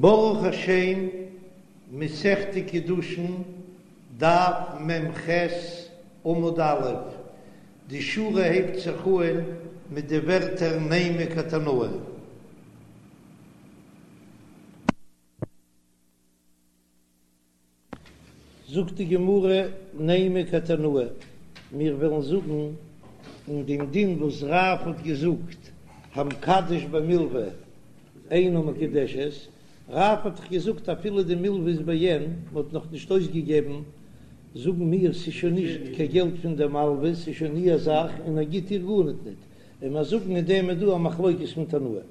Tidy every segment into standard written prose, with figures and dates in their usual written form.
ברוך השם, מסכת קידושין, דף מ"ח, עמוד א', די שורה הייבט זיך אהן מיט די ווערטער נימא כתנאי. זאגט די גמרא נימא כתנאי, מיר וועלן זאגן אין דעם דין וואס רב האט געזאגט המקדש במלוה אינה מקודשת, רב האט דאך געזאגט אפילו די מלוה איז בעין, מען האט נאך נישט אויסגעגעבן, זאגן מיר ס'איז שוין נישט קיין געלט פון דער מלוה, ס'איז שוין איר זאך און ער גיט איר גארניט ניט, און מיר זאגן אין דעם איז דא א מחלוקת פון תנאים.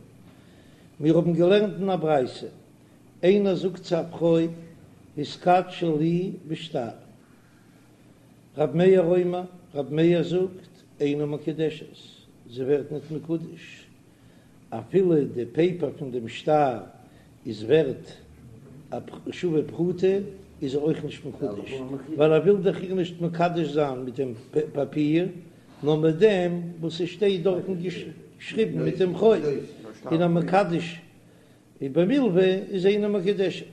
מיר האבן געלערנט אין א ברייתא איינער זאגט צו א פרוי התקדשי לי בשטר, רב מאיר אומר, רב מאיר זאגט אינה מקודשת, זי ווערט ניט מקודש, אפילו די פעיפער פון דעם שטר איז ווערט א שווה פרוטה איז זי אויך נישט מקודש, ווייל ער וויל דאך איר נישט מקדש זיין מיט דעם פאפיר, נאר מיט דעם וואס עס שטייט דארטן געשריבן מיט דעם חוב, און המקדש ובמלוה איז אינה מקודשת,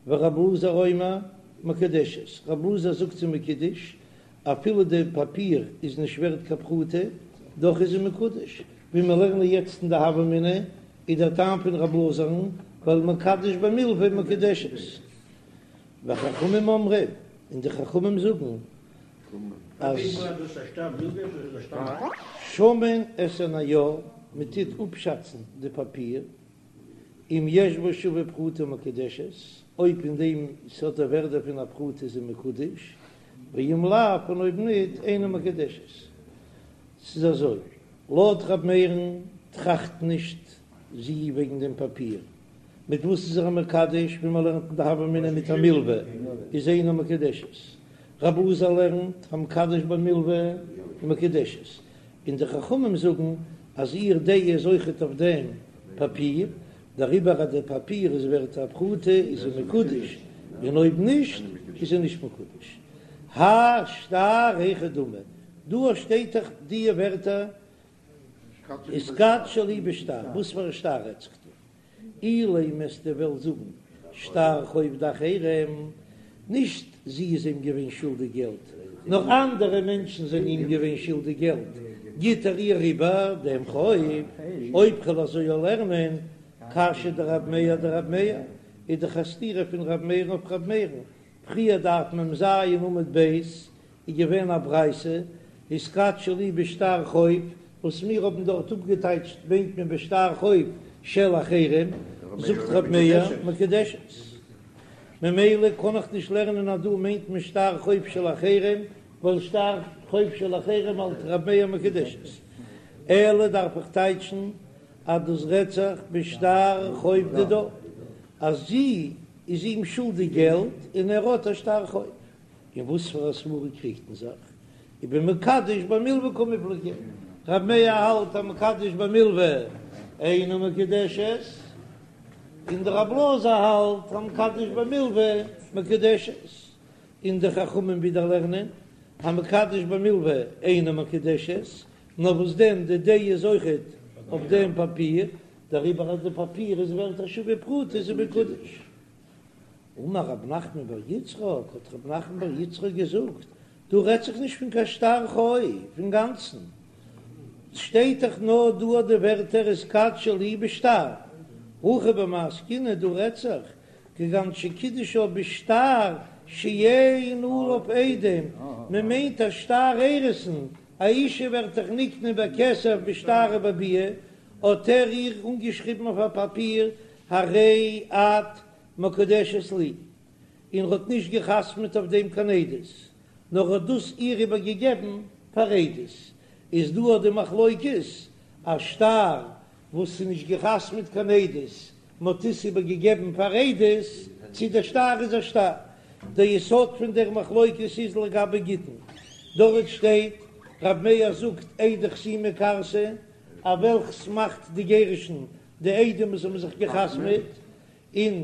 ורב אלעזר אומר מקודשת, רב אלעזר זאגט זי מקודש, אפילו די פאפיר איז נישט ווערט קיין פרוטה, דאך איז זי מקודש, ווי מיר לערנען יעצט אין די הוה אמינא, איז דער טעם פון רב אלעזר'ן, ווייל מקדש במלוה מקודשת. וחכמים אומרים, און די חכמים זאגן אז. שמין את הנייר, מען טוט אפשאצן די פאפיר, אם יש בו שווה פרוטה מקודשת, אויב אין דעם ס'האט א ווערדע פון א פרוטה איז זי מקודש, ואם לאו, און אויב ניט, אינה מקודשת. ס'איז אזוי, לויט ר' מאיר'ן טראכט נישט זי וועגן דעם פאפיר, מיט וואס איז ער מקדש, ווי מען לערנט אין די הוה אמינא מיט א מלוה איז אינה מקודשת, רב אלעזר לערנט המקדש במלוה מקודשת, און די חכמים זאגן אז איר דעה איז אויכעט אויף דעם פאפיר, דעריבער אז די פאפיר איז ווערט א פרוטה איז זי מקודש, און אויב נישט איז זי נישט מקודש. האי שטר היכי דמי, דא שטייט דאך די ווערטער התקדשי לי בשטר, וואס פאר א שטר רעדט זיך דא? אילימא וועסטו וועלן זאגן שטר חוב דאחרים, נישט זי איז אים געווען שולדיג געלט, נאר אנדערע מענטשן זענען אים געווען שולדיג געלט, גיט ער איר איבער דעם חוב. אויב כ'וועל אזוי לערנען, קשיא דרב מאיר אדרב מאיר, איז דאך א סתירה פון רב מאיר'ן אויף רב מאיר'ן, פריער דף מ"ז עמוד ב' איז געווען א ברייתא, התקדשי לי בשטר חוב, וואס מיר האבן דארט אפגעטייטשט מיינט מען בשטר חוב של אחרים, זאגט ר' מאיר מקודשת. ממילא קען איך נישט לערנען אז דא מיינט מען שטר חוב של אחרים, ווייל שטר חוב של אחרים האלט ר' מאיר מקודשת. אלא דארף איך טייטשן אז דאס רעדט זיך בשטר חוב דידה, אז זי איז אים שולדיג געלט און ער האט א שטר חוב. אין וואס פאר א סברא קריגט מען זיך? ובמקדש במלוה קמיפלגי, רב מאיר האלט המקדש במלוה אינה מקודשת, און דער רב אלעזר האלט המקדש במלוה מקודשת, און די חכמים ווידער לערנען המקדש במלוה אינה מקודשת, נאר וואס דען די דעה איז אויכעט אויף דעם פאפיר, דעריבער אז די פאפיר איז ווערט א שווה פרוטה איז זי מקודש. אמר רב נחמן בר יצחק, האט רב נחמן בר יצחק געזאגט, דא רעדט זיך נישט פון קיין שטר חוב אינגאנצן, ס'שטייט דאך נאר דא די ווערטער התקדשי לי בשטר, הכא במאי עסקינן, דא רעדט זיך כגון שקידשה בשטר שאין עליו עדים, מען מיינט א שטר אירוסין, א אישה ווערט דאך נקנה בכסף בשטר ובביאה, האט ער איר אנגעשריבן אויף א פאפיר הרי את מקודשת לי, און ר'האט נישט גע'חתמ'עט אויף דעם קיין עדות, נאר ר'האט דאס איר איבער געגעבן פאר עדות, איז דא אט די מחלוקת, א שטר וואס איז נישט גע'חתמ'עט קיין עדות, מ'האט עס איבער געגעבן פאר עדות, צי דער שטר איז א שטר. דער יסוד פון דער מחלוקת איז לגבי גיטין, דארט שטייט, רב מאיר זאגט עדי חתימה כרתי, א וועלכס מאכט די גירושין די עדים וואס האבן זיך געחתמעט, און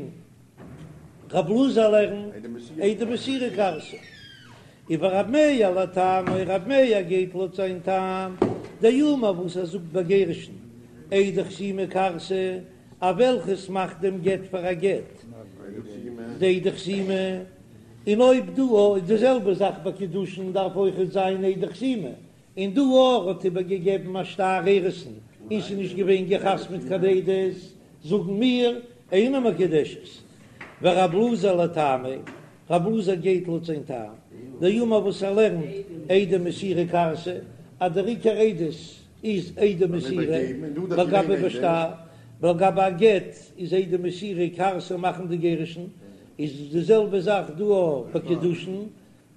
רב אלעזר לערנט עדי מסירה כרתי. ורב מאיר לטעמיה, רב מאיר גייט לויט זיין טעם, דאמר וואס ער זאגט ביי גירושין עדי חתימה כרתי. א וועלכעס מאכט דעם גט פאר א גט? די עדי חתימה, און אויב דא איז די זעלבע זאך ביי קידושין דארף אויכעט זיין עדי חתימה, און דא ער האט איבערגעגעבן א שטר אירוסין און ס'איז נישט געווען געחתמ'ט קיין עדות, זאגן מיר אינה מקודשת. ורב אלעזר לטעמיה, רב אלעזר גייט לויט זיין טעם, דאמר וואס ער לערנט עדי מסירה כרתי, אז דער עיקר עדות איז עדי מסירה, לגבי בשטר, ולגבי א גט איז עדי מסירה כרתי מאכן די גירושין, איז די זעלבע זאך דא אויך ביי קידושין,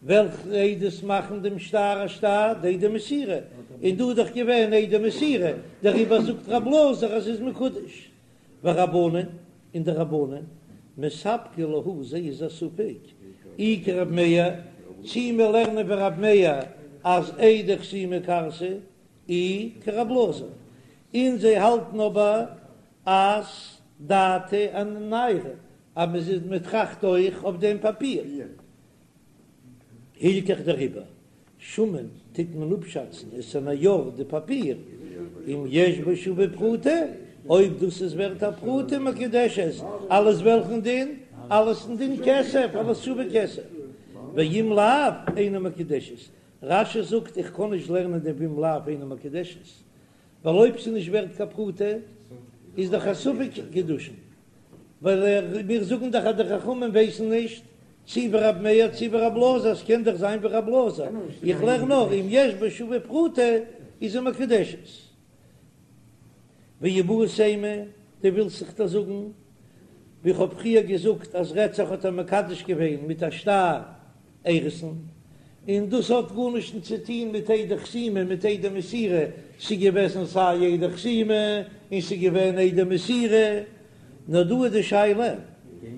וועלכע עדות מאכן דעם שטר א שטר? די עדי מסירה, און דא איז דאך געווען עדי מסירה, דעריבער זאגט רב אלעזר אז ס'איז מקודש. ורבנן, און די רבנן, מספקא להו זיי איז א ספק, אי כרב מאיר, צי מיר לערנען ווי רב מאיר אז עדי חתימה כרתי, אי כרב אלעזר, און זיי האלטן אבער אז דעתא אניירא, אז מען טראכט אויך אויף דעם פאפיר. הלכך דעריבער שמין טוט מען אפשאצן את הנייר די פאפיר אם יש בו שווה פרוטה, אויב דאס איז ווערט א פרוטה מקודשת, אלס וועלכן דין? אלס דין כסף, אלס שווה כסף, ואם לאו אינה מקודשת, רש"י זאגט איך קען נישט לערנען דעם ואם לאו אינה מקודשת, ווייל אויב ס'איז נישט ווערט קיין פרוטה איז דאך א ספק קידושין, ווייל מיר זאגן דאך אז די חכמים ווייסן נישט צי ווי רב מאיר צי ווי רב אלעזר, ס'קען דאך זיין ווי רב אלעזר, איך לערן נאר אם יש בו שווה פרוטה איז זי מקודשת. ואיבעית אימא, דו ווילסט זיך דא זאגן ווי כ'האב פריער געזאגט אז רעדט זיך האט ער מקדש געווען מיט א שטר אירוסין, און דאס האט גארנישט צו טון מיט עדי חתימה מיט עדי מסירה, ס'איז געוועזן סיי עדי חתימה און ס'איז געווען עדי מסירה, נאר דא איז די שאלה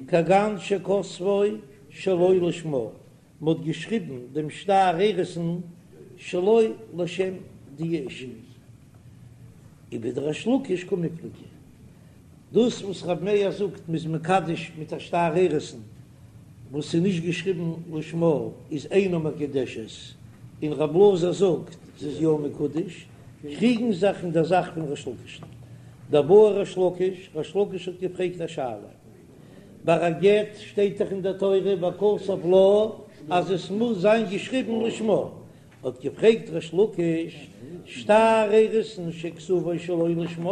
כגון שכתבו שלא לשמה, מ'האט געשריבן דעם שטר אירוסין שלא לשם די אשה. ובדריש לקיש קמיפלגי. דאס וואס רב מאיר זאגט מ'איז מקדש מיט א שטר אירוסין וואס איז נישט געשריבן לשמה איז אינה מקודשת, און רב אלעזר זאגט ס'איז יא מקודש, קריגן זיך אין דער זאך פון ריש לקיש'ן. דבעי ריש לקיש, ריש לקיש האט געפרעגט א שאלה. ביי א גט שטייט דאך אין דער תורה וכתב לה אז עס מוז זיין געשריבן לשמה, האט געפרעגט ריש לקיש, שטר אירוסין שכתבו שלא לשמה,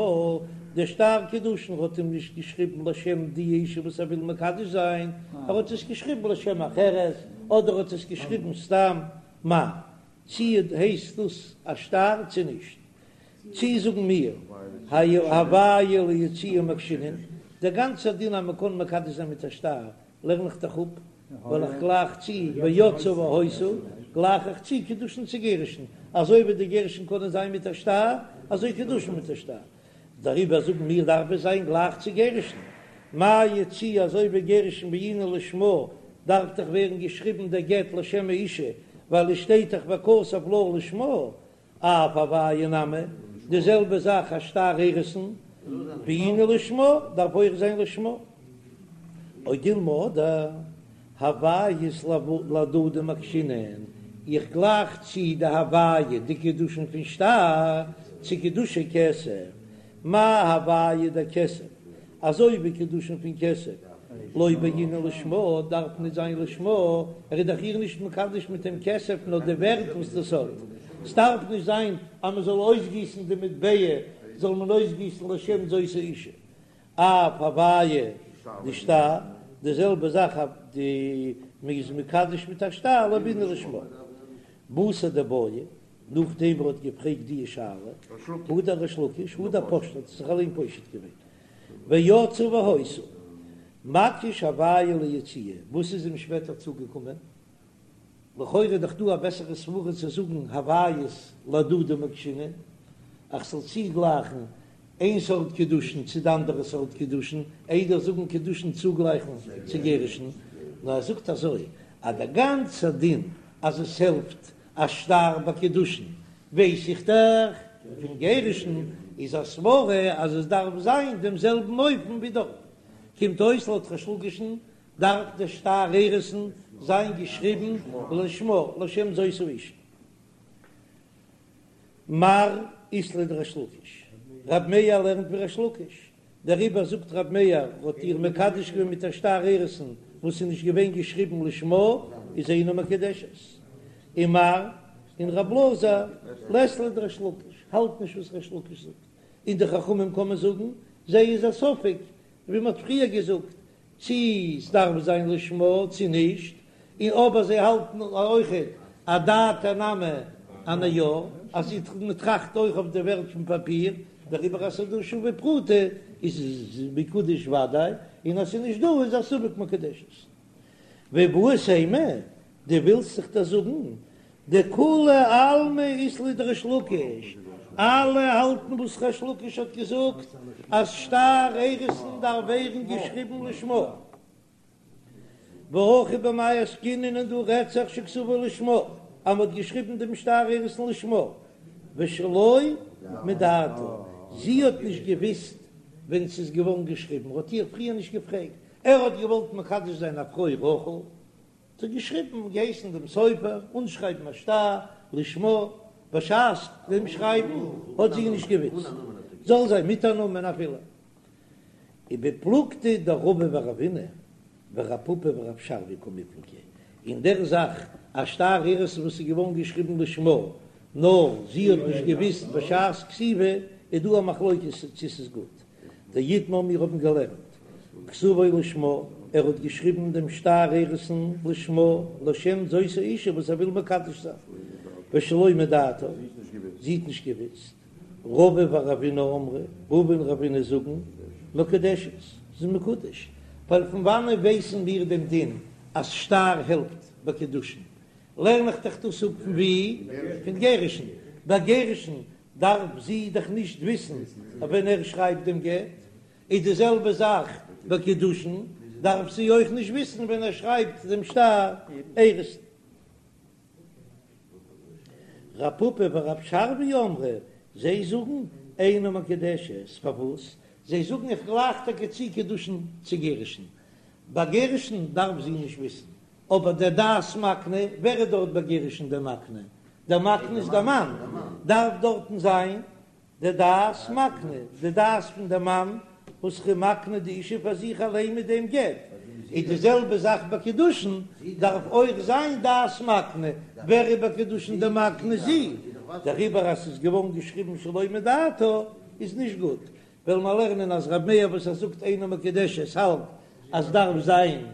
דער שטר קידושין האט אים נישט געשריבן לשם די אשה וואס ער וויל מקדש זיין, ער האט עס געשריבן לשם אחרת, אדער האט עס געשריבן סתם, מהו, צי הייסט דאס א שטר צי נישט? צי זאגן מיר, הויה ליציאה מקשינן, דער גאנצער דין אז מען קען מקדש זיין מיט א שטר, לערן איך דאך אפ, ווייל איך גלייך צו ויצאה והיתה, גלייך איך צו קידושין צו גירושין, אזוי ווי די גירושין קענען זיין מיט א שטר, אזוי קידושין מיט א שטר. דעריבער זאגן מיר דארף עס זיין גלייך צו גירושין. מה יציאה אזוי ווי גירושין בעינן לשמה, דארף דאך ווערן געשריבן דער גט לשם האישה, ווייל עס שטייט דאך וכתב לה לשמה, אף הויה נמי, די זעלבע זאך א שטר אירוסין, בעינן לשמה, דארף אויך זיין לשמה. או דילמא אדער, הויות להדדי מקשינן, איך גלייך צו די הויה די קידושין פון שטר צו קידושי כסף, מה הויה דכסף, אזוי ווי קידושין פון כסף, לא בעינן לשמה, דארף נישט זיין לשמה, ער איז דאך איר נישט מקדש מיט דעם כסף נאר די ווערט וואס דאס האט, ס'דארף נישט זיין אז מען זאל אויסגיסן די מטבע, זאל מען אויסגיסן לשם זאת האישה. אף הויה דשטר, די זעלבע זאך אויף די מען איז מקדש מיט א שטר לא בעינן לשמה. בתר דבעיא, נאכדעם ער האט געפרעגט די שאלה, הדר ריש לקיש, הדר פשטה האט זיך אליין פושט געווען, ויצאה והיתה, מקיש הויה ליציאה, וואס איז אים שפעטער צוגעקומען? לכאורה איז דאך דא א בעסערע סברה צו זאגן הויות להדדי מקשינן, איך זאל צוגלייכן איין סארט קידושין צו די אנדערע סארט קידושין, איידער זאגן קידושין צוגלייכן צו גירושין, נאר ער זאגט אזוי אז דער גאנצער דין אז עס העלפט א שטר ביי קידושין ווייס איך דאך פון גירושין, איז א סברה אז עס דארף זיין דעם זעלבן אופן ווי דארט, קומט אויס לויט ריש לקיש'ן דארף דער שטר אירוסין זיין געשריבן לשמה לשם זאת האישה. מר אית ליה דריש לקיש, רב מאיר לערנט ווי ריש לקיש. דעריבער זאגט ר' מאיר האט איר מקדש געווען מיט א שטר אירוסין וואס איז נישט געווען געשריבן לשמה איז אינה מקודשת. ומר און ר' אלעזר לית ליה דריש לקיש האלט נישט וואס ריש לקיש זאגט, און די חכמים קען מען זאגן זיי איז א ספק ווי מען האט פריער געזאגט צי ס'דארף זיין לשמה צי נישט, און אבער זיי האלטן אויכעט אדעתה נמי אנייר, אז מ'טראכט אויך אויף די ווערט פון פאפיר, דעריבער אז ס'איז דא שווה פרוטה איז מקודש וודאי, און אז ס'איז נישט דא איז א ספק מקודשת. ואיבעית אימא, דו ווילסט זיך דאס זאגן דכולי עלמא אית להו דריש לקיש, אלע האלטן וואס ריש לקיש האט געזאגט אז שטר אירוסין דארף ווערן געשריבן לשמה. והכא במאי עסקינן און דא רעדט זיך שכתבו לשמה אז מ'האט געשריבן דעם שטר אירוסין לשמה ושלא מדעתה, זי האט נישט געוויסט ווען ס'איז געווארן געשריבן, ער האט איר פריער נישט געפרעגט, ער האט געוואלט מקדש זיין א פרוי רחל, האט ער געשריבן, געהייסן דעם סופר אנשרייבן א שטר לשמה, בשעת דעם שרייבן האט זי נישט געוויסט, זאל זיין מיט א נאמען אפילו. ובפלוגתא דרבא ורבינא ורב פפא ורב שרביא קמיפלגי, אין דער זאך א שטר אירוסין וואס איז געווארן געשריבן לשמה, נאר זי האט נישט געוויסט בשעת כתיבה, איז דא א מחלוקת צו ס'איז גוט. דאיתמר מיר האבן געלערנט כתבו לשמה, ער האט געשריבן דעם שטר אירוסין לשמה, לשם זאת האשה וואס ער וויל מקדש זיין, ושלא מדעתה, זי האט נישט געוויסט, רבא ורבינא אמרי, רבא און רבינא זאגן, מקודשת, ס'איז מקודש, ווייל פון וואנען ווייסן מיר דעם דין אז שטר העלפט ביי קידושין, לערן איך דאך דאס אפ פון ווי? פון גירושין, ביי גירושין דארף זי דאך נישט וויסן ווען ער שרייבט דעם גט, איז די זעלבע זאך ביי קידושין, דארף זי אויך נישט וויסן ווען ער שרייבט דעם שטר אירוסין. רב פפא ורב שרביא אמרי, זיי זאגן אינה מקודשת, פארוואס? זיי זאגן איך גלייך טאקע צו קידושין צו גירושין, ביי גירושין דארף זי נישט וויסן, אבער דער דעת מקנה, ווער איז דארט ביי גירושין דער מקנה? דער מקנה איז דער מאן, דארף דארטן זיין די דעת מקנה, די דעת פון דער מאן וואס איז מקנה די אישה פאר זיך אליין מיט דעם גט, איז די זעלבע זאך ביי קידושין, דארף אויך זיין דעת מקנה, ווער איז ביי קידושין דער מקנה? זי, דעריבער אז ס'איז געווארן געשריבן שלא מדעתה איז נישט גוט, וועלן מיר לערנען אז רב מאיר וואס ער זאגט אינה מקודשת האלט אז דארף זיין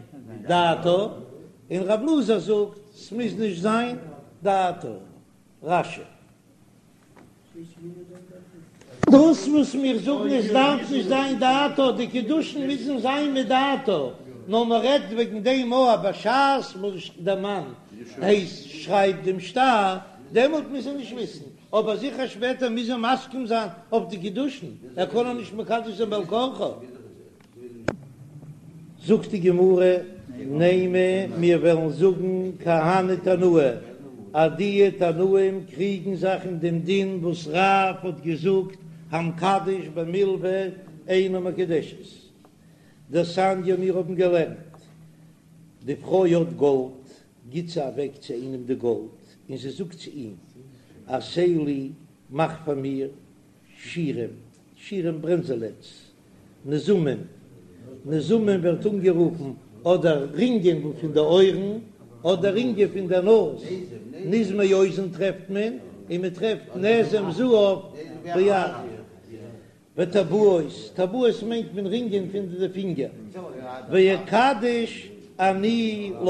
דעתה, און רב אלעזר זאגט ס'מוז נישט זיין דעתה. רש"י. דאס וואס מיר זאגן עס דארף נישט זיין דעתה, די קידושין מוזן זיין מדעתה, נאר מען רעדט וועגן דעם אויב בשעת וואס דער מאן הייסט שרייבט דעם שטר, דעמאלט מוז ער נישט וויסן, אבער זיכער שפעטער מוז ער מסכים זיין אויף די קידושין, ער קען איר נישט מקדש זיין בעל כרחה. זאגט די גמרא, נימא, מיר וועלן זאגן כי הני תנאי, אז די תנאים קריגן זיך אין דעם דין וואס רב האט געזאגט המקדש במלוה אינה מקודשת. דתניא מיר האבן געלערנט, די פרוי האט גאלד, גיט זי אוועק צו איינעם די גאלד, און זי זאגט צו אים, עשה לי, מאך פאר מיר, שירים, שירים ברענזעלעטס, נזמים, נזמים ווערט אנגערופן אדער רינגען פון די אויערן, אדער רינגען פון די נאז, נזמי אוזן טרעפט מען, און מען טרעפט נזם זהב ביד. וטבעות, טבעות מיינט מען רינגען פון די פינגער, ואקדש אני לך,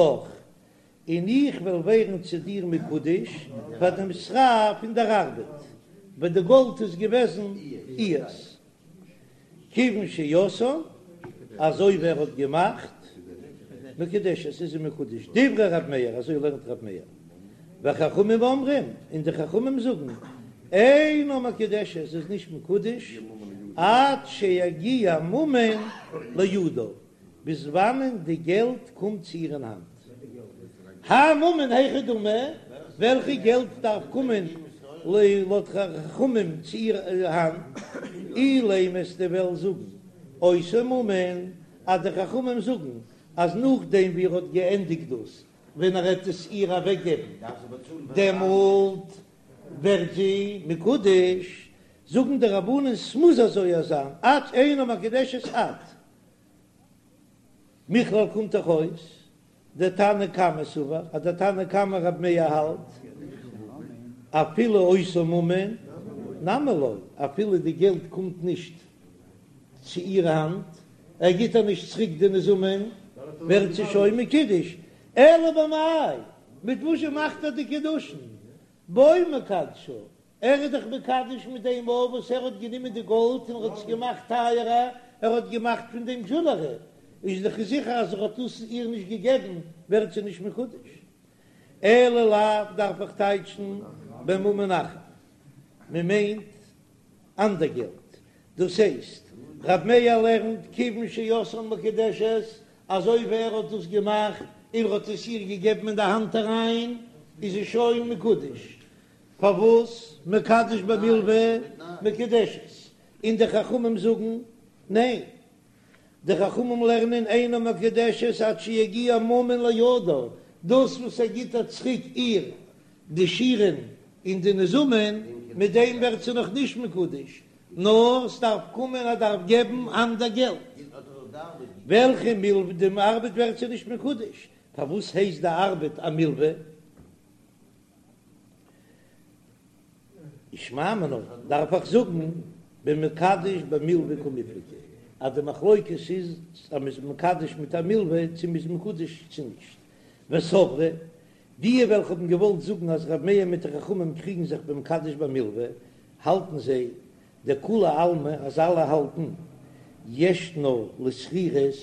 און איך וועל ווערן צו דיר מקודש פאר דעם שכר פון דער ארבעט, ווייל די גאלד איז געוועזן איהר'ס. כיוון שעשאן, אזוי ווי ער האט געמאכט, מקודשת, איז זי מקודש, דברי ר' מאיר, אזוי לערנט ר' מאיר, וחכמים אומרים, און די חכמים זאגן, אינה מקודשת, איז נישט מקודש, עד שיגיע ממון לידה, ביז וואנען די געלט קומט צו איר אין האנט. האי ממון היכי דמי, וועלכע געלט דארף קומען לויט חכמים צו איר האנט? אילימא וועסטו וועלן זאגן אותו ממון, אז די חכמים זאגן אז נאכדעם ווי ער האט געענדיגט דאס, ווען ער העט עס איר אוועקגעבן, דעמאלט ווערט זי מקודש. זאגן די רבנן ס'מוז אזוי זיין עד אינה מקודשת עד. מכלל קומט דאך אויס דתנא קמא סבר אז דער תנא קמא רב מאיר האלט אפילו אותו ממון נמי לא, אפילו די געלט קומט נישט צו איר האנט, ער גיט איר נישט צוריק די נזמים, ווערט זי שוין מקודש, אלא במאי, מיט וואס זשע מאכט ער די קידושין? בו מקדשה, ער איז דאך מקדש מיט דעם אויף וואס ער האט גענומען די גאלד און ער האט עס געמאכט טייערער, ער האט געמאכט פון דעם דזשולערי, איז דאך זיכער אז ער האט דאס איר נישט געגעבן ווערט זי נישט מקודש. אלא לאו דארף איך טייטשן בממון אחר, מען מיינט אנדער געלט, דאס הייסט רב מאיר לערנט כיוון שעשאן מקודשת, אזוי ווי ער האט דאס געמאכט און ער האט עס איר געגעבן אין די האנט אריין איז זי שוין מקודש, פארוואס מקדש במלוה מקודשת? און די חכמים זאגן ניין, די חכמים לערנען אינה מקודשת עד שיגיע ממון לידה, דאס וואס ער גיט איר צוריק איר די שירין און די נזמים, מיט דעם ווערט זי נאך נישט מקודש, נאר ס'דארף קומען ער דארף געבן אנדער געלט, וועלכע מלוה די ארבעט ווערט זי נישט מקודש, פארוואס הייסט די ארבעט א מלוה? שמע מינה, דארף איך זאגן במקדש במלוה קמיפלגי אז די מחלוקת איז אז מ'איז מקדש מיט א מלוה צו מ'איז מקודש צו נישט. וסברי, די וועלכע האבן געוואלט זאגן אז ר' מאיר מיט די חכמים קריגן זיך במקדש במלוה, האלטן זיי דכולי עלמא אז אלע האלטן ישנה לשכירות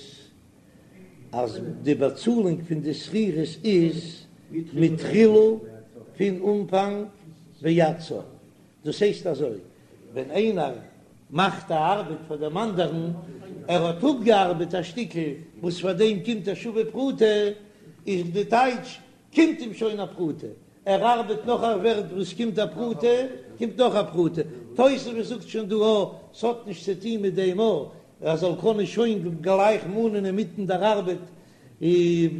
אז די באצאלונג פון די שכירות איז מתחילה פון אנפאנג ועד סוף, דאס הייסט אזוי, ווען איינער מאכט א ארבעט פאר דעם אנדערן, ער האט אפגעארבעט א שטיקל וואס פאר דעם קומט א שווה פרוטה, איז די טייטש קומט אים שוין א פרוטה, ער ארבעט נאך א ווערט וואס קומט א פרוטה, קומט נאך א פרוטה, תוספות זאגט שוין דא א, ס'האט נישט צו טון מיט דעם א, ער זאל קענען שוין גלייך מאנען אינמיטן דער ארבעט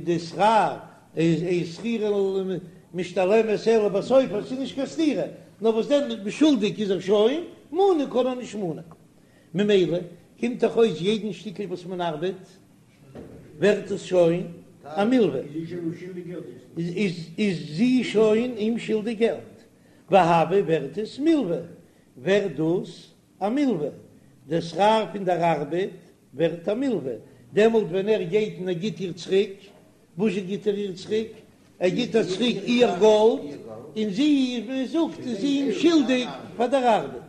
די שכר, איז אין שכירות משתלמת אלא בסוף, עס איז נישט קיין סתירה, נאר וואס דען שולדיג איז ער שוין, מאנען קען ער נישט מאנען, ממילא קומט דאך אויס יעדן שטיקל וואס מען ארבעט ווערט עס שוין א מלווה, איז זי שוין אים שולדיג געלט, והוה ווערט עס מלווה, ווערט דאס א מלווה, דער שכר פון דער ארבעט ווערט א מלווה, דעמאלט ווען ער גייט און ער גיט איר צוריק, וואזשע גיט ער איר צוריק? ער גיט איר צוריק איר גאלד, און זי, ווי מען זאגט, איז אים שולדיג פאר דער ארבעט.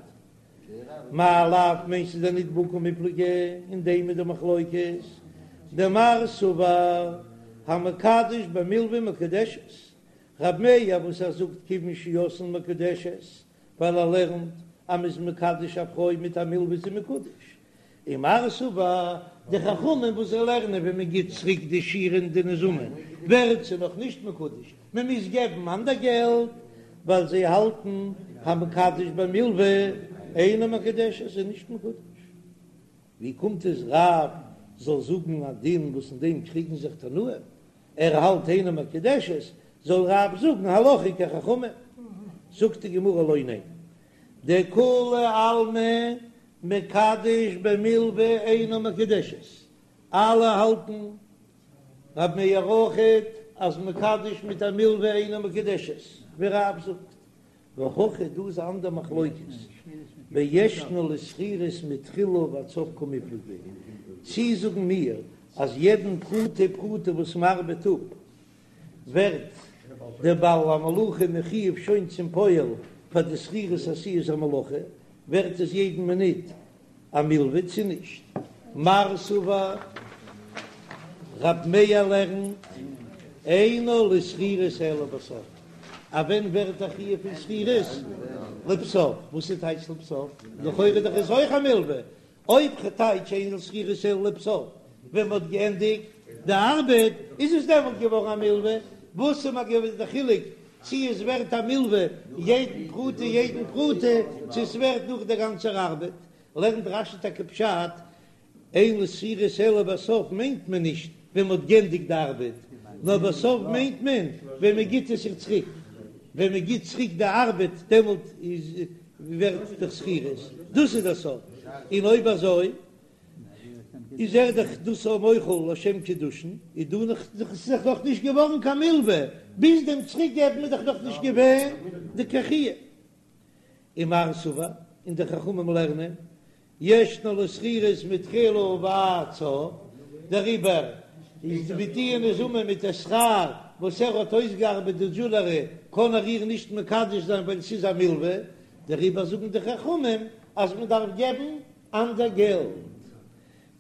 מאי לאו מיינסטו דען ניט בהא קמיפלגי אין דעם איז די מחלוקת דמר סבר המקדש במלוה מקודשת רב מאיר וואס ער זאגט כיוון שעשאן מקודשת ווייל ער לערנט אז מ'איז מקדש א פרוי מיט א מלוה איז זי מקודש ומר סבר, די חכמים וואס זיי לערנען ווען מען גיט צוריק די שירין די נזמים ווערט זי נאך נישט מקודש, מען מוז געבן אנדער געלט, ווייל זיי האלטן המקדש במלוה אינה מקודשת איז נישט מקודש. ווי קומט עס רב זאל זאגן א דין וואס אין דעם קריגן זיך תנאים, ער האלט אינה מקודשת, זאל רב זאגן הלכה כחכמים? זאגט די גמרא לא ניין, דכולי עלמא מקדש במלוה אינה מקודשת, אלע האלטן רב מאיר אויכעט אז מקדש מיט א מלוה אינה מקודשת, ווי רב זאגט, והכא דא איז א אנדער מחלוקת, בישנה לשכירות מתחילה ועד סוף קמיפלגי, צי זאגן מיר אז יעדן פרוטה פרוטה וואס מ'ארבעט אפ ווערט דער בעל המלאכה מחויב שוין צום פועל פאר די שכירות עשיית המלאכה, ווערט עס יעדן מינוט א מלווה צו נישט? מר סבר, רב מאיר לערנט, אינה לשכירות אלא בסוף, א ווען ווערט א חיוב פון שכירות? לבסוף, וואס איז טייטש לבסוף? לכאורה דאך איז אויך א מלווה, אויב כ'טייטש אין לשכירות אלא לבסוף, ווען מ'האט געענדיגט די ארבעט איז עס דעמאלט געווארן א מלווה, וואס איז מיר געווען די חילוק צי עס ווערט א מלווה יעדן פרוטה יעדן פרוטה צו עס ווערט נאך דער גאנצער ארבעט, לערנט רש"י טאקע פשט אין לשכירות אלא בסוף מיינט מען נישט ווען מ'האט גענדיגט די ארבעט, נאר בסוף מיינט מען ווען מ'גיט עס איר צוריק, ווען מ'גיט צוריק די ארבעט דעמאלט איז. ווערט דאך שכירות, דאס איז דער סוף, און אויב אזוי איז ער דאך דאס א מוחל לשם קידושין, איז דא נאך ס'איז דאך נאך נישט געווארן קיין מלווה, ביז דעם צוריק געבן איז דאך נאך נישט געווען די קיין חיוב. ומר סבר, און די חכמים לערנען, ישנה לשכירות מתחילה ועד סוף, דעריבער איז מיט די מזומן מיט די שכר וואס ער האט אויסגעארבעט די דזשולערי קען ער איר נישט מקדש זיין ווייל ס'איז א מלווה, דעריבער זאגן די חכמים אז מען דארף געבן אנדער געלט.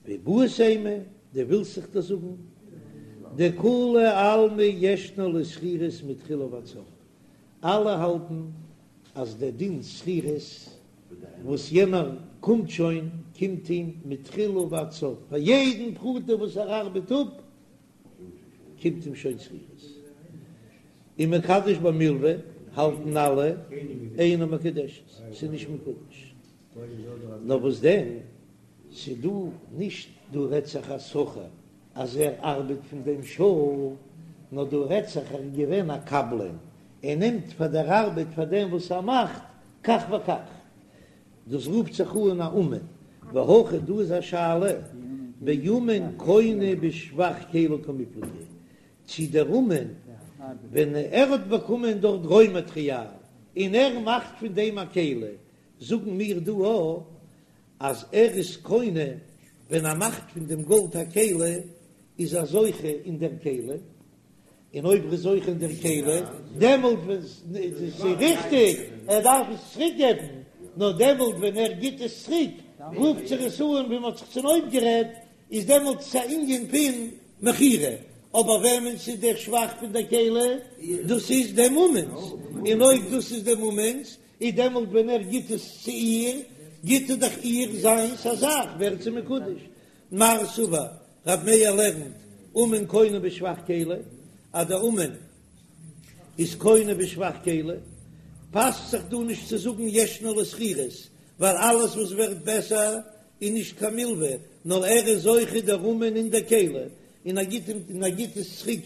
ואיבעית אימא, דו ווילסט זיך דאס זאגן, דכולי עלמא ישנה לשכירות מתחילה ועד סוף, אלע האלטן אז דער דין שכירות וואס יענער קומט שוין קומט אים מתחילה ועד סוף, פאר יעדן פרוטה וואס ער ארבעט אפ קומט אים שוין שכירות. און מקדש במלוה האלטן אלע אינה מקודשת, ס'איז נישט מקודש. נאר וואס דען, ס'דא נישט דא רעדט זיך א שכיר אז ער ארבעט פון דעם שעה, נאר דא רעדט זיך ער איז געווען א קבלן, ער נעמט פאר דער ארבעט פאר דעם וואס ער מאכט כך וכך, דאס רופט זיך אן א אומן, והכא דא איז א שאלה באומן קונה בשבח כלי קמיפלגי, צי דער אומן ווען ער האט באקומען דארט רוי מאטריאל און ער מאכט פון דעם א כלי, זאגן מיר דא א אז ער איז קונה ווען ער מאכט פון דעם גאלד א כלי איז ער זוכה אין דער כלי, און אויב ער איז זוכה אין דער כלי דעמאלט ווען ס'איז ריכטיג ער דארף עס צוריק געבן, נאר דעמאלט ווען ער גיט עס צוריק רופט זיך עס אן ווי מ'האט זיך צונויפגערעדט, איז דעמאלט עס א ענין פון מכירה, אבער וועמענס איז דער שבח פון דער כלי? דאס איז דעם אומן'ס, און אויב דאס איז דעם אומן'ס איז דעמאלט ווען ער גיט עס צו איר, גיט ער דאך איר זיינס א זאך, ווערט זי מקודש. מר סבר, רב מאיר לערנט, אומן קונה בשבח כלי, אז דער אומן איז קונה בשבח כלי, פאסט זיך דא נישט צו זאגן ישנה לשכירות, ווייל אלעס וואס ווערט בעסער איז נישט קיין מלווה, נאר ער איז זוכה דער אומן אין דער כלי, און ער גיט אים און ער גיט עס צוריק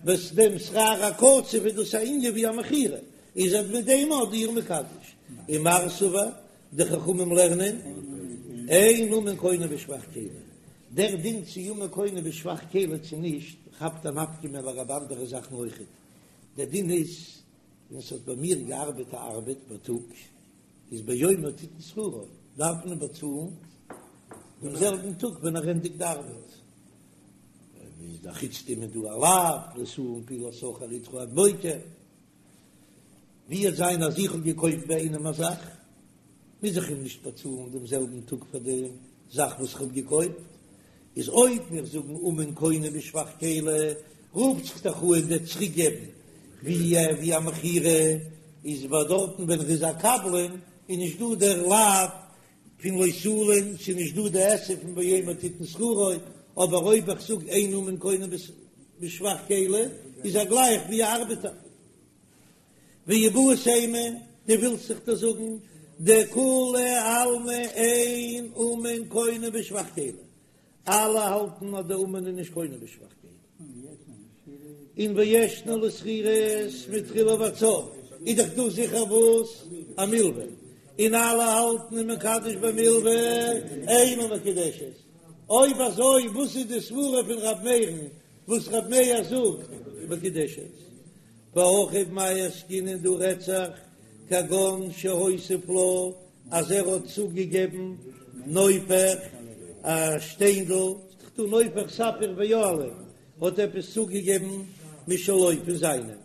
וואס דעם שכר הקצוב איז דאס א ענין ווי א מכירה, איז ער מיט דעם אט איר מקדש. ומר סבר, די חכמים לערנען, אין אומן קונה בשבח כלי, דער דין צו אומן קונה בשבח כלי צו נישט, כאפט א נפקא מינה לגבי אנדערע זאכן אויכעט, דער דין איז, ווען ס'האט ביי מיר געארבעט א ארבעט בייטאג, איז ביומו תתן שכרו, דארף מען באצאלן דעם זעלבן טאג ווען ער ענדיגט די ארבעט. איז דאך חוץ דעם איז דא א לאו, לא תלין פעולת שכיר אתך עד בוקר. ווי וועט זיין אז איך האב געקויפט ביי איינעם א זאך, מוז איך אים נישט באצאלן דעם זעלבן טאג פאר די זאך וואס איך האב געקויפט. איז אויב מיר זאגן אומן קונה בשבח כלי, רופט זיך דאך אן דער צוריקגעבן ווי א מכירה, איז ביי דארטן ווען ער איז א קבלן איז נישט דא דער לאו פון לא תלין, ס'איז נישט דא די עשה פון ביומו תתן שכרו, אבער אויב איך זאג אין אומן קונה בשבח כלי, איז ער גלייך ווי א ארבעטער. ואיבעית אימא, דו ווילסט זיך דאס זאגן, דכולי עלמא אין אומן קונה בשבח כלי, אלע האלטן אז די אומן איז נישט קונה בשבח כלי. און וישנה לשכירות מתחילה ועד סוף, איז דאך דא זיכער וואס? א מלווה, און אלע האלטן ומקדש במלווה אינה מקודשת, אויב אזוי וואס איז די סברה פון ר' מאיר'ן וואס ר' מאיר זאגט מקודשת? והכא במאי עסקינן דא רעדט זיך כגון שהוסיף לה אז ער האט צוגעגעבן נופך א שטיינדל, ס'דאך דא נופך ספיר ויהלום, האט עפעס צוגעגעבן משלו פון זיינעם,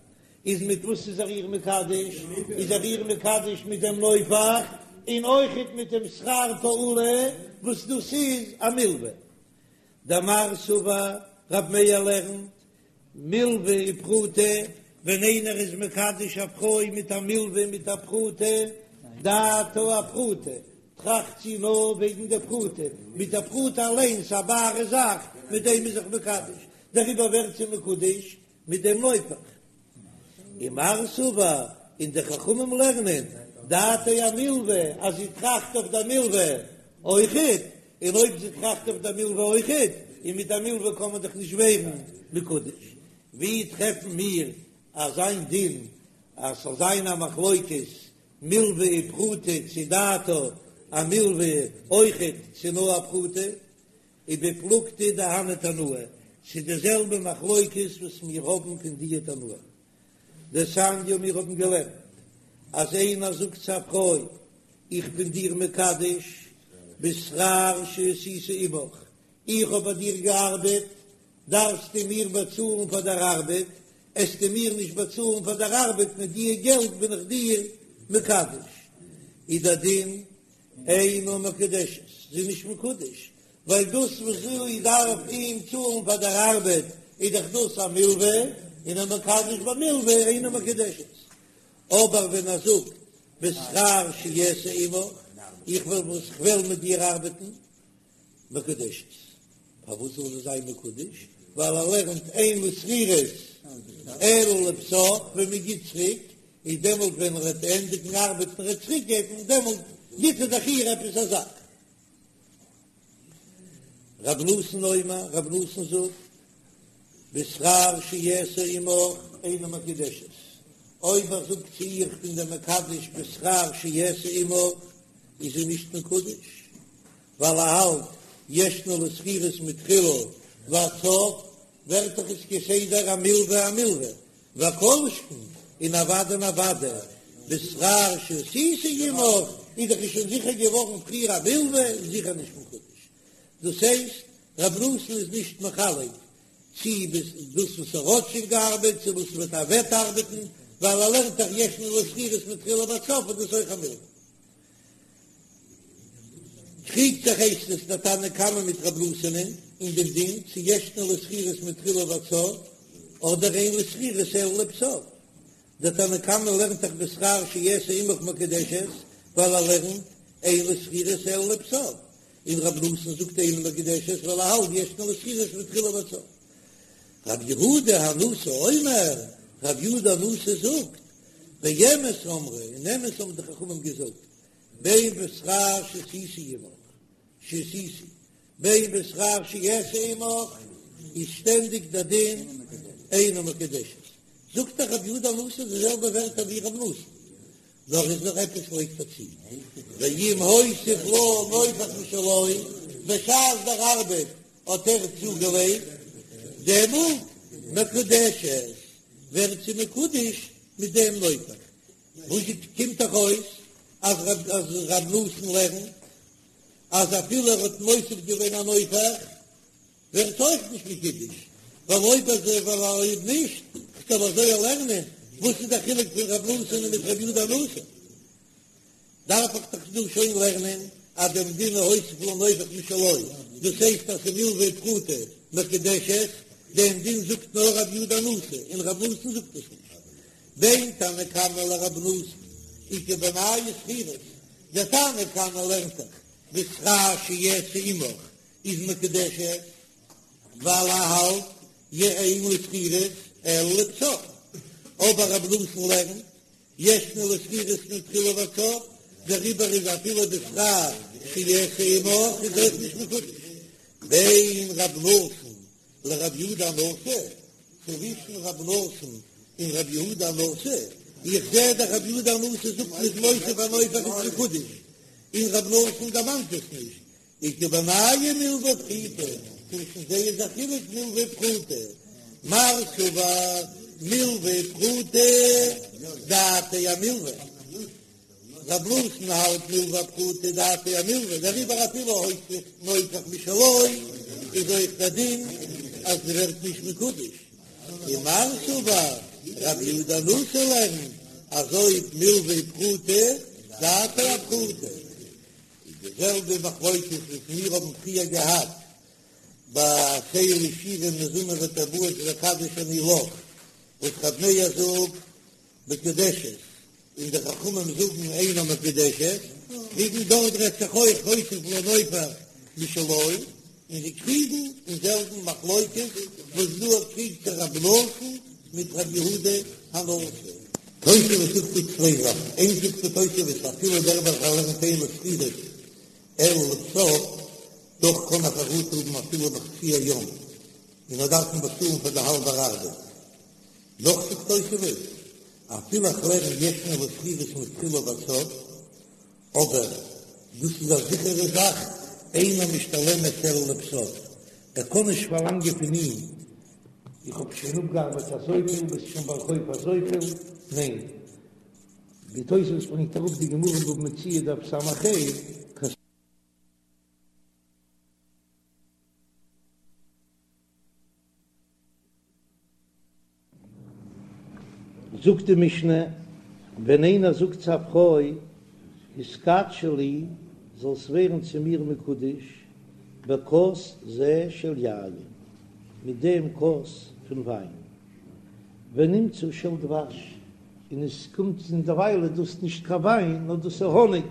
איז מיט וואס איז ער איר מקדש? איז ער איר מקדש מיט דעם נופך און אויכעט מיט דעם שכר פעולה וואס דאס איז א מלווה. דמר סבר רב מאיר לערנט מלווה ופרוטה, ווען איינער איז מקדש א פרוי מיט א מלווה מיט א פרוטה, דעתה אפרוטה, טראכט זי נאר וועגן די פרוטה, מיט די פרוטה אליינס א בארע זאך, מיט דעם איז זיך מקדש, דעריבער ווערט זי מקודש מיט דעם נופך. ומר סבר, און די חכמים לערנען, דעתה אמלווה, אז זי טראכט אויף די מלווה אויכעט, און אויב זי טראכט אויף די מלווה אויכעט, און מיט א מלווה קען מען דאך נישט ווערן מקודש, ווי טרעפן מיר אזיין דין אז ס'זאל זיין א מחלוקת? מלוה ופרוטה צו דעתה אמלוה אויכעט צו נאר א פרוטה, ובפלוגתא דהני תנאי, ס'איז די זעלבע מחלוקת וואס מיר האבן פון דיע תנאים. דתניא מיר האבן געלערנט אז איינער זאגט צו א פרוי איך בין דיר מקדש בשכר שעשיתי עמך, איך האב ביי דיר געארבעט, דארפסטו מיר באצאלן פאר דער ארבעט, עסטו מיר נישט באצאלן פאר דער ארבעט מיט דיע געלט בין איך דיר מקדש. איז דער דין אינה מקודשת, זי איז נישט מקודש, ווייל דאס וואס זי דארף אים צאלן פאר דער ארבעט איז דאך דאס א מלווה, און המקדש במלווה אינה מקודשת. אבער ווען ער זאגט בשכר שאעשה עמך, איך וועל וואס כ'וועל מיט דיר ארבעטן, מקודשת. פארוואס זאל זי זיין מקודש? ווייל ער לערנט אין לי שכירות אלא לבסוף, ווען מען גיט צוריק, איז דעמאלט ווען ער וועט ענדיגן ארבעטן און ער וועט צוריק געבן, דעמאלט גיט ער דאך איר עפעס א זאך. רב נתן אומר, רב נתן זאגט, בשכר שאעשה עמך אינה מקודשת, אויב ער זאגט צו איר איך בין דיר מקדש בשכר שאעשה עמך, איז זי נישט מקודש, ווייל ער האלט ישנה לשכירות מתחילה ועד סוף, ווערט דאך עס כסדר א מלווה א מלווה, וכל שכן און אוודאי און אוודאי בשכר שעשיתי עמך איז דאך שוין זיכער געווארן פריער א מלווה איז זיכער נישט מקודש, דאס הייסט רב נתן איז נישט מחלק צי דאס וואס ער האט שוין געארבעט צו וואס וועט ער וועט ארבעטן, ווייל ער לערנט דאך ישנה לשכירות מתחילה ועד סוף איז דאס אויך א מלווה. קריגט זיך הייסט עס דער תנא קמא מיט רב נתן'ען אין דעם דין צו ישנה לשכירות מתחילה ועד סוף אדער אין לשכירות אלא לבסוף. דער תנא קמא לערנט דאך בשכר שאעשה עמך מקודשת ווייל ער לערנט אין לשכירות אלא לבסוף, און רב נתן זאגט אינה מקודשת ווייל ער האלט ישנה לשכירות מתחילה ועד סוף. רב יהודה הנשיא אומר, רב יהודה הנשיא זאגט, באמת אמרו, אין אמת האבן די חכמים געזאגט, בין בשכר שעשיתי עמך, שעשיתי, בין בשכר שאעשה עמך, איז שטענדיג דער דין אינה מקודשת. זאגט דאך רבי יהודה הנשיא די זעלבע ווערטער ווי רב נתן, נאר איז נאך עפעס לייגט ער צו, ואם הוסיף לה נופך משלו, בשעת דער ארבעט האט ער צוגעלייגט, דעמאלט מקודשת, ווערט זי מקודש מיט דעם נופך. וואס קומט דאך אויס אז רב נתן לערנט אז אפילו ער האט מוסיף געווען א נופך ווערט אויך נישט מקודש, ווייל אויב אזוי ווייל אויב נישט כ'זאל אזוי לערנען, וואס איז דער חילוק פון רב נתן מיט רבי יהודה הנשיא? דארף איך דאך דא שוין לערנען אז דעם דין הוסיף לה נופך משלו, דאס הייסט אז ס'מלוה ופרוטה מקודשת, דעם דין זאגט נאר רבי יהודה הנשיא און רב נתן זאגט עס נישט. בין תנא קמא לרב נתן איכא בינייהו שכירות, דער תנא קמא לערנט דאך בשכר שאעשה עמך איז מקודשת, ווייל ער האלט אין לשכירות אלא לבסוף, אבער רב נתן לערנט ישנה לשכירות מתחילה ועד סוף, דעריבער איז אפילו בשכר שאעשה עמך איז אויך נישט מקודש. בין רב נתן לרב יהודה הנשיא, צווישן רב נתן און רב יהודה הנשיא, איך זע דאך רב יהודה הנשיא זאגט מ'איז מוסיף א נופך איז מקודש, און רב נתן דערמאנט עס נישט, איכא בינייהו מלוה ופחותה, צווישן זיי איז א חילוק מלוה ופחותה, מר סבר מלוה ופחותה דעתיה אמלוה, רב נתן האלט מלוה ופחותה דעתיה אמלוה, דעריבער אפילו הוסיף נופך משלו איז אויך דער דין אז זי ווערט נישט מקודש, און מר סבר רב יהודה הנשיא לערנט אז אויב מלוה ופחותה דעתיה אפחותה. איז די זעלבע מחלוקת וואס מיר האבן פריער געהאט ביי עשה לי שירים מזמר וטבעות וקדש אני לך, וואס רב מאיר זאגט מקודשת און די חכמים זאגן אינה מקודשת, קריגן דארט רעדט זיך אויך הוסיף לה נופך משלו, און זיי קריגן אין זעלבן מחלוקת וואס דא קריגט זיך רב נתן מיט רב יהודה הנשיא. תוספות זאגט דא צוויי זאכן, איינס זאגט די תוספות אפילו דער וועלכער לערנט אין לשכירות אלא לבסוף, דאך קען ער חרטה האבן אפילו בחצי היום, און ער דארף אים באצאלן פאר די האלבער ארבעט. נאך זאגט תוספות. אפילו איך לערן ישנה לשכירות מתחילה ועד סוף, אבער דאס איז א זיכערע זאך, אינה משתלמת אלא לבסוף, ער קען נישט פארלאנגען פון אים, איך האב שוין אפגעארבעט אזויפיל, ביסט שוין בעל חוב אזויפיל, ניין, ווי תוספות ברענגט אראפ די גמרא אין בבא מציעא דף ס"ה, זאגט די משנה, ווען איינער זאגט צו א פרוי, התקדשי לי, זאלסט ווערן צו מיר מקודש, בכוס זה של יין, מיט דעם כוס פון וויין, ונמצא של דבש, און עס קומט און דערווייל איז דאס נישט קיין וויין, נאר דאס איז האניג,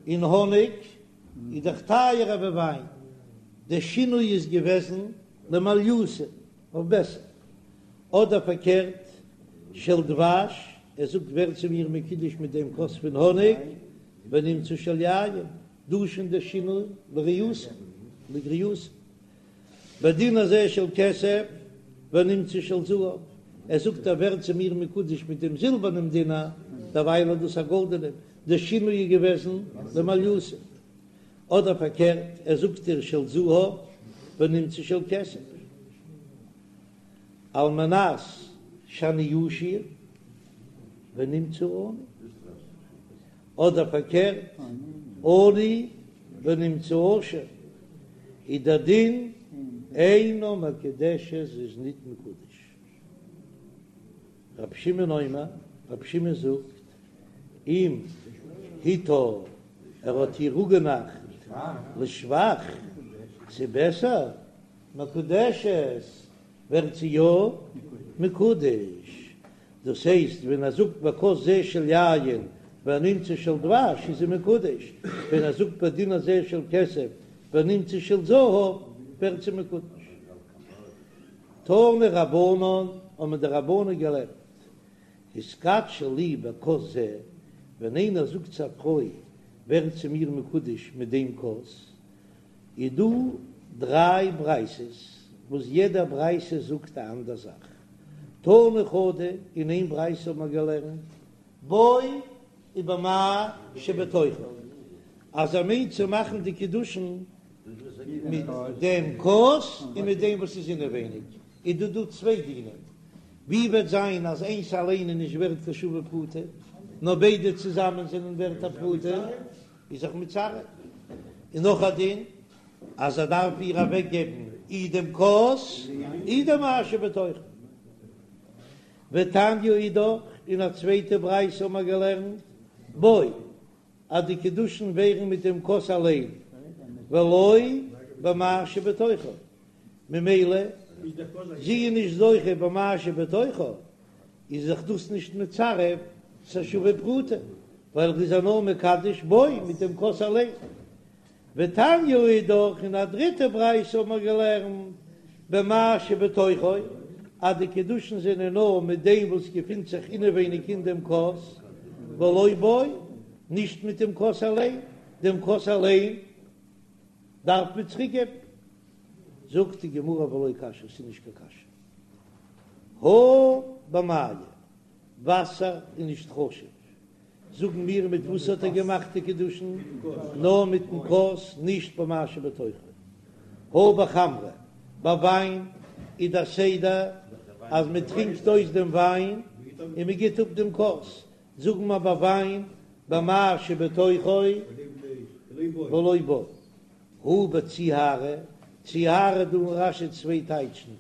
און האניג איז דאך טייערער ווי וויין, דער שינוי איז געוועזן למעליותא, אויף בעסער, אדער פארקערט, של דבש, ער זאגט ווער צו מיר מקודש מיט דעם כוס פון האניג, ונמצא של יין, דא איז שוין דער שינוי לריעותא, לגריעותא. בדינר זה של כסף ונמצא של זהב, ער זאגט ער ווערט צו מיר מקודש מיט דעם זילבערנעם דינר, דערווייל איז דאס א גאלדענעם, דער שינוי איז געוועזן למעליותא. אדער פארקערט, ער זאגט איר של זהב ונמצא של כסף, על מנת שאני עשיר ונמצא עני, אדער פארקערט, עני ונמצא עשיר, איז דער דין אינה מקודשת זי איז ניט מקודש. רבי שמעון אומר, רבי שמעון זאגט, אם הטעה ער האט איר אפגענארט לשבח, צו בעסער, מקודשת, ווערט זי יא מקודש, דאס הייסט ווען ער זאגט בכוס זה של יין ונמצא של דבש איז זי מקודש, ווען ער זאגט בדינר זה של כסף ונמצא של זהב ווערט זי מקודש. תנו רבנן, האבן די רבנן געלערנט, התקדשי לי בכוס זה, ווען איינער זאגט צו א פרוי ווער צו מיר מקודש מיט דעם כוס, איז דא דריי ברייתות וואס יעדע ברייתא זאגט א אנדער זאך. תנא חדא, אין איין ברייתא האט מען געלערנט בו ובמה שבתוכו, אז ער מיינט צו מאכן די קידושין מיט דעם כוס און מיט דעם וואס איז אינעווייניג, איז דא דא צוויי דינים, ווי וועט זיין אז איינס אליין איז נישט ווערט קיין שווה פרוטה, נאר ביידע צוזאמען זענען ווערט א פרוטה, איז זיך מצרף. און נאך א דין, אז ער דארף איר אוועק געבן אי דעם כוס אי דעם מה שבתוכו. ותניא אידך, אין א צווייטע ברייתא האבן מיר געלערנט, בו, אז די קידושין ווערן מיט דעם כוס אליין, ולא במה שבתוכו, ממילא זי איז נישט זוכה במה שבתוכו, איז זיך דאס נישט מצרף צו שווה פרוטה, ווייל ער איז איר נאר מקדש בו מיט דעם כוס אליין. ותניא אידך, אין א דריטע ברייתא האבן מיר געלערנט במה שבתוכו, אז די קידושין זענען נאר מיט דעם וואס געפינט זיך אינעווייניג אין דעם כוס, ולא בו, נישט מיט דעם כוס אליין, דעם כוס אליין דארף מען צוריקגעבן. זאגט די גמרא ולא קשיא, ס'איז נישט קיין קשיא. הא במיא, וואסער איז נישט חשוב, זאגן מיר מיט וואס האט ער געמאכט די קידושין? נאר מיטן כוס, נישט במה שבתוכו. הא בחמרא, ביי וויין איז דער סדר אז מען טרינקט אויס דעם וויין און מען גיט אפ דעם כוס, זאגן מיר ביי וויין במה שבתוכו ולא בו. הא בציהרא, ציהרא דא אין רש"י צוויי טייטשן,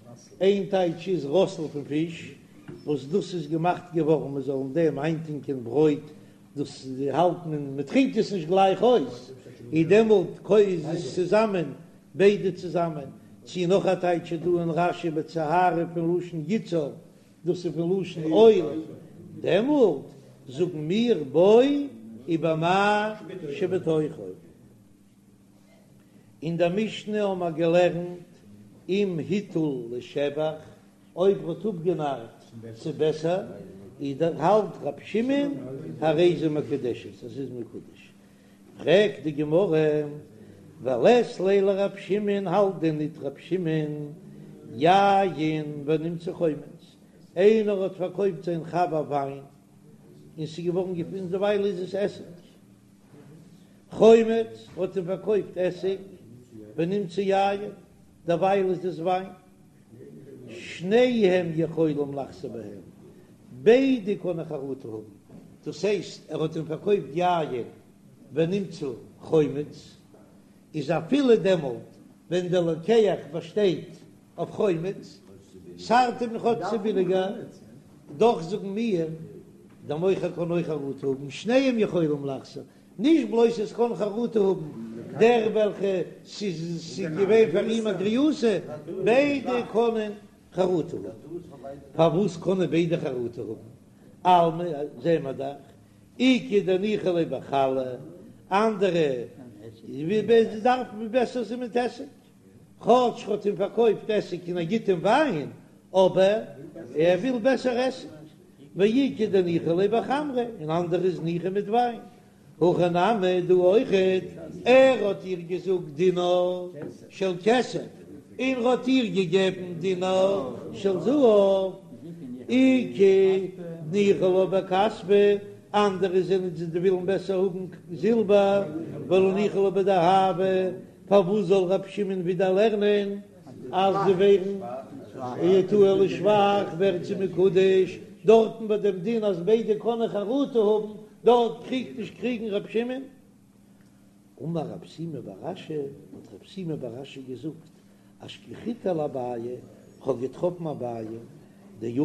איין טייטש איז ראסל פון פיש, וואס דאס איז געמאכט געווארן מען זאל אין דעם איינטונקען ברויט, דאס האלט מען, מען טרינקט עס נישט גלייך אויס, איז דעמאלט איז עס צוזאמען ביידע צוזאמען, צי נאך א טייטש איז דא אין רש"י בציהרא פון לשון יצהר, דאס איז פון לשון אויל, דעמאלט זאגן מיר בו ובמה שבתוכו. אין דער משנה האבן מיר געלערנט אם הטעה לשבח, אויב ער האט אפגענארט צו בעסער, איז דער האלט רב שמעון הרי זו מקודשת, אז ס'איז מקודש. פרעגט די גמרא, ולית ליה לרב שמעון, האלט דען ניט רב שמעון יין ונמצא חומץ, איינער האט פארקויפט זיין חבר וויין. און ס'איז געווארן געפונען דערווייל איז עס עסיג. חומץ האט אים פארקויפט עסיג ונמצא יין, דערווייל איז עס וויין. שניהם יכולים לחזור בהם, ביידע קענען חרטה האבן, דאס הייסט ער האט אים פארקויפט יין ונמצא חומץ, איז אפילו דעמאלט ווען דער לוקח באשטייט אויף חומץ, ס'ארט אים כאטש ס'איז ביליגער, דאך זאגן מיר, דער מוכר קען אויך חרטה האבן, שניהם יכולים לחזור, נישט בלויז עס קען חרטה האבן דער וועלכע ס'איז געווען פאר אים א גריעותא, ביידע קענען חרטה האבן. פארוואס קענען ביידע חרטה האבן? אלמא זעען מיר דאך איכא דניחא ליה בחלא, אנדערע דארפן בעסער זיין מיט עסיג, כאטש ר'האט אים פארקויפט עסיג און ער גיט אים וויין, אבער ער וויל בעסער עסיג, ואיכא דניחא ליה בחמרא, און אנדערע איז ניחא מיט וויין. הכא נמי דא אויכעט, ער האט איר געזאגט דינר של כסף, און ר'האט איר געגעבן דינר של זהב, איכא דניחא לה בכספא, אנדערע זענען זיי ווילן בעסער האבן זילבער, ולא ניחא לה בדהבא, פארוואס זאל ר' שמעון ווידער לערנען אז זיי ווערן הטעה לשבח ווערט זי מקודש, דארטן ביי דעם דין אז ביידע קענען חרטה האבן, דארט קריגט נישט קריגן ר' שמעון? אמר רב שימי בר אשי, האט רב שימי בר אשי געזאגט, אשכחתיה לאביי, כ'האב געטראפן אביי, דיתיב,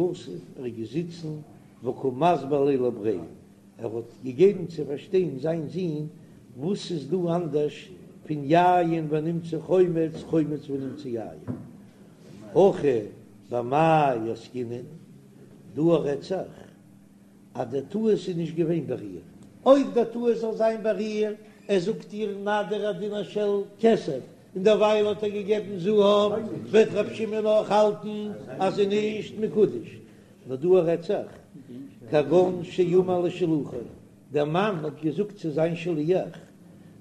ער איז געזיצן, וקא מסביר ליה לבריה, ער האט געגעבן צו פארשטיין זיין זון וואס איז דא אנדערש פון יין ונמצא חומץ, חומץ ונמצא יין. הכא במאי עסקינן, דא רעדט זיך אז דער טעות איז נישט געווען ביי איר, אויב דער טעות זאל זיין ביי איר, ער זאגט איר נא דיר א דינר של כסף, און דערווייל האט ער געגעבן זהב, וועט ר' שמעון אויך האלטן אז זי איז נישט מקודש. נאר דא רעדט זיך, כגון שאמר לשלוחו, דער מאן האט געזאגט צו זיין שליח,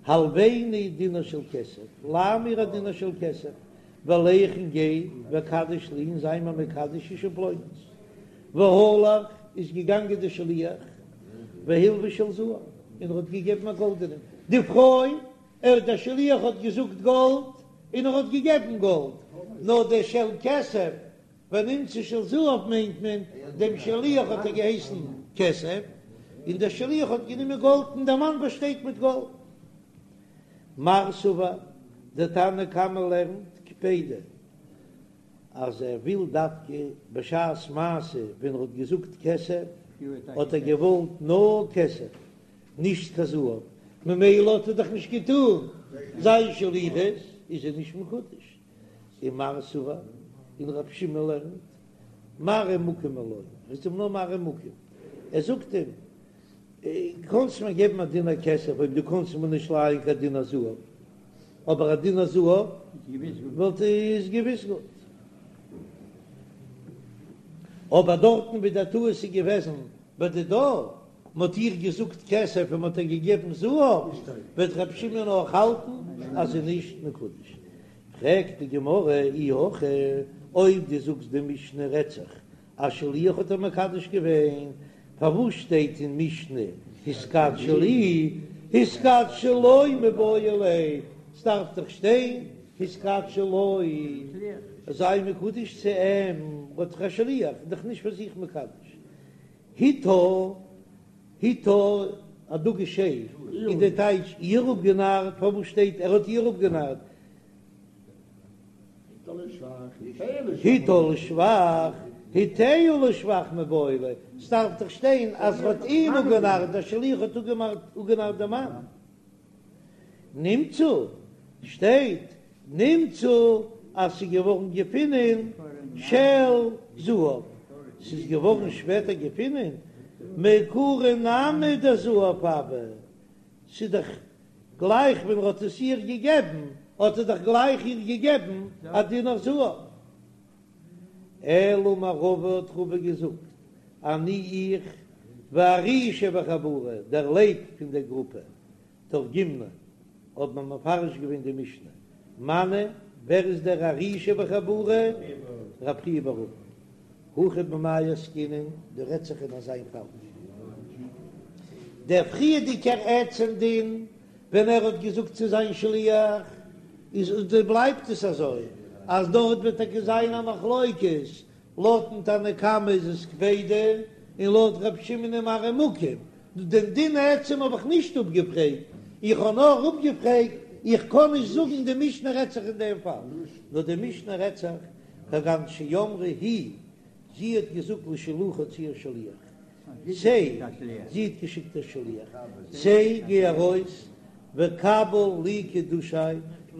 הלויני דינר של כסף, ליי מיר א דינר של כסף, ולך און גיי, וקדש לי און זיי מיר מקדש אשה פלונית. והלך איז געגאנגען דער שליח, והלווה של זהב, און ער האט געגעבן א גאלדענעם, די פרוי, ער דער שליח האט געזאגט גאלד, און ער האט געגעבן גאלד, נאר דער של כסף ונמצא של זהב מיינט מען, דעם שליח האט ער געהייסן כסף, און דער שליח האט גענומען גאלד און דער מאן באשטייט מיט גאלד. מר סבר, דער תנא קמא לערנט קפידא אז ער וויל דווקא בשעת מעשה ווען ער האט געזאגט כסף האט ער געוואלט נאר כסף נישט קיין זהב, ממילא האט ער דאך נישט געטון זיין שליחות איז ער נישט מקודש. ומר סבר, און רב שמעון לערנט, מראה מקום הוא לו, ער איז אים נאר מראה מקום, ער זאגט אים, קאנסט מיר געבן א דינר כסף אויב דו קאנסט מיר נישט לייען קיין דינר זהב, אבער א דינר זהב וואלט איז געוויס גוט. אבער דארטן ווי דער טעות איז געוועזן בדידה, מ'האט איר געזאגט כסף און מ'האט איר געגעבן זהב, וועט ר' שמעון אויך האלטן אז זי איז נישט מקודש. פרעגט די גמרא אי הכי, אויב דו זאגסט די משנה רעדט זיך א שליח האט איר מקדש געווען, פארוואס שטייט אין משנה התקדשי לי, התקדשי לו מיבעי ליה, ס'דארף דאך שטיין התקדשי לו, זיי מקודש צו אים, האט דאך א שליח, איז דאך נישט פאר זיך מקדש. הטעה, הטעה, א דגוש ה', איז די טייטש איר אפגענארט, פארוואס שטייט ער האט איר אפגענארט? הטעה לשבח, הטעהו לשבח מיבעי ליה, ס'דארף דאך שטיין אז ער האט אים אפגענארט, דער שליח האט אפגענארט דעם מאן. נמצא, שטייט נמצא אז ס'איז געווארן געפינען של זהב, ס'איז געווארן שפעטער געפינען, מעיקרא נמי דזהב הוה, ס'איז דאך גלייך ווען ער האט עס איר געגעבן, האט ער דאך גלייך איר געגעבן א דינר זהב. אלא אמר רבא האט רבא געזאגט, אני איך והארי שבחבורה, דער לייב פון דער גרופע, תרגימנא, האט מען מפרש געווען די משנה, מני, ווער איז דער ארי שבחבורה? רב חייא בר אבין. הכא במאי עסקינן, דא רעדט זיך אין אזא פאל. דער פריערדיגער עצם דין ווען ער האט געזאגט צו זיין שליח איז בלייבט עס אזוי אז דארט וועט טאקע זיין א מחלוקת, לויטן תנא קמא איז עס קפידא און לויט ר' שמעון איז מראה מקום, דעם דין עצם האב איך נישט אפגעפרעגט, איך האב נאר אפגעפרעגט איך קען נישט זאגן די משנה רעדט זיך אין דעם פאל, נאר די משנה רעדט זיך כגון שאמרה היא, זי האט געזאגט לשלוחה צו איר שליח, צא, זי האט געשיקט איר שליח, צא, גיי ארויס, וקבל לי קידושי,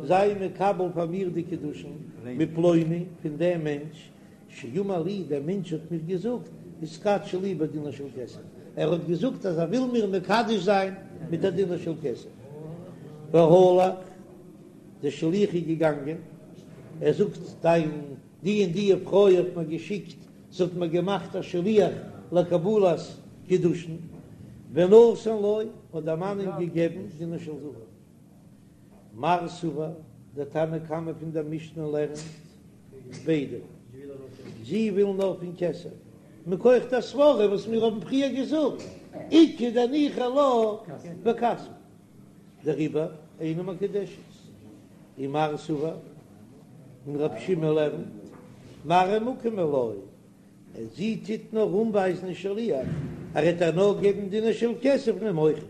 זיי מקבל פאר מיר די קידושין, מפלוני, פון דעם מענטש, שאמר לי, דער מענטש האט מיר געזאגט, התקדשי לי בדינר של כסף, ער האט געזאגט אז ער וויל מיר מקדש זיין מיט א דינר של כסף. והלך, דער שליח איז געגאנגען, ער זאגט, דיין די און די פרוי האט מיר געשיקט, זי האט מיר געמאכט א שליח לקבלת קידושין, ונתן לו, האט דער מאן אים געגעבן דינר של זהב. מר סבר, דער תנא קמא פון דער משנה לערנט קפידא, זי וויל נאר פון כסף, מכח דער סברא וואס מיר האבן פריער געזאגט, איכא דניחא לה בכספא, דעריבער אינה מקודשת. ומר סבר, און רב שמעון לערנט, מראה מקום היא לו, זי טוט נאר אנווייזן אין שליח, ער וועט איר נאר געבן דינר של כסף נעם אויכעט.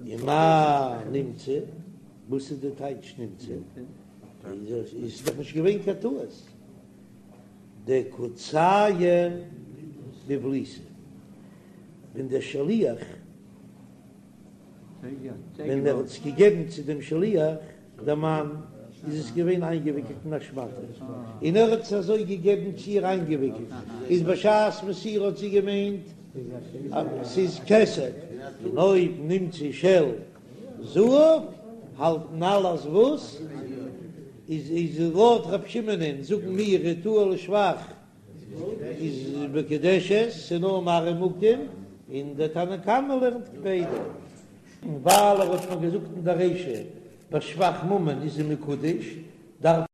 ומאי נמצא, וואס איז די טייטש נמצא? איז דאך נישט געווען קיין טעות. דקא צייר בבליתא, ווען דער שליח ווען ער האט עס געגעבן צו דעם שליח, דער מאן, איז עס געווען איינגעוויקלט אין א שמאטע, און ער האט עס אזוי געגעבן צו איר איינגעוויקלט, איז בשעת מסירה האט זי געמיינט אז ס'איז כסף, און אויב נמצא של זהב, האלטן אלע אז וואס? איז איז לויט ר' שמעונ'ען זאגן מיר הטעה לשבח איז מקודשת, ס'איז נאר מראה מקום, און דער תנא קמא לערנט קפידא. און ווייל ער האט מיר געזאגט אין דער רישא בשבח ממון איז זי מקודש, דארף.